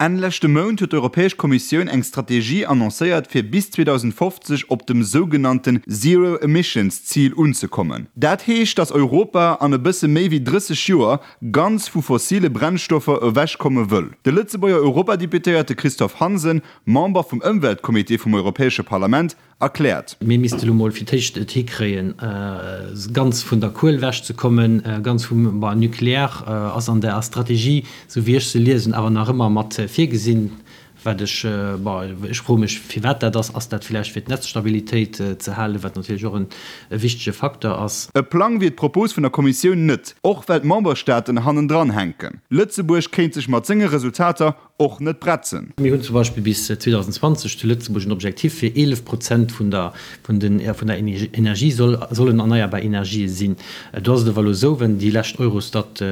Enn leschte Mount huet d'Europäesch Kommissioun eng Strategie annoncéiert, fir bis 2050 op dem sougenannten Zero Emissions Zil unzekommen. Dat heescht, datt Europa an e bësse méi wéi 30 Joer ganz vu fossile Brennstoffer ewechkomme wëll. De Lëtzebuerger Europadeputéierte Christophe Hansen, Member vum Ëmweltcomité vum Europäesche Parlament, erkläert. Mir misste lo mol fir d'éischt et hikréien, ganz vun der Kuel ewechzekommen, ganz vum, bon, Nucléaire ass an der Strategie, esou wéi ech se liesen, awer nach ëmmer mat virgesinn, wat ech, bon, ech froe mech, firwat dat ass. Ass dat villäicht fir d'Netzstabilitéit ze halen, wat natierlech och e wichtege Facteur ass. E Plang wier d'Propos vun der Kommissioun net, och well d'Memberstaaten hannendran hänken. Lëtzebuerg kéint sech mat senge Resultater och net bretzen. Mir hunn zum Beispill bis 2020 zu Lëtzebuerg en Objectif fir 11 Prozent vun der vun den vun der Energie soll sollen erneierbar Energië sinn. Do ass et awer elo esou, wenn déi lescht Eurostat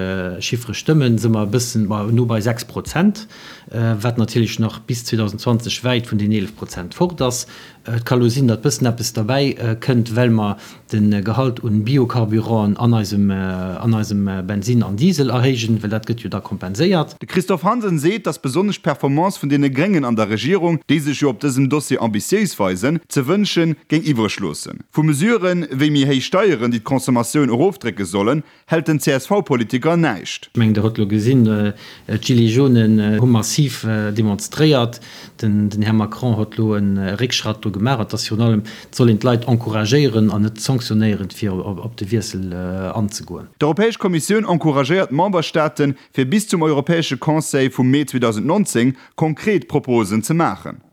Chiffere stëmmen, si mer e bëssen, ma no bei 6 Prozent, wat natierlech nach bis 2020 wäit vun den 11 Prozent fort ass. Et ka lo sinn, datt bëssen eppes derbäi kënnt, well mer de Gehalt un Biocarburanten an eisem an eisem Bensinn an Diesel erhéijen, well dat gëtt jo da kompenséiert. De Christophe Hansen seet, datt besonnesch d'Performance vun deene Gréngen an der Regierung, déi sech jo op dësem Dossier ambitiéis weisen, ze wënsche géing iwwreg loossen. Vu Mesuren, wéi méi héich Steieren, déi d'Consommatioun erofdrécke sollen, hält den CSV-Politiker näischt. Ech mengen, Der hutt elo gesinn, d'Gilets jaunes hu massiv demonstréiert. Den Här Macron huet elo e Réckschratt do gemaach. Et ass virun allem, et soll een d'Leit encouragéieren an net sanktionéieren, fir op de Wiessel anzegoen. D'Europäesch Kommissioun encouragéiert d'Memberstaaten, fir bis zum Europäesche Conseil vum Mee 2019 konkret Proposen ze maachen.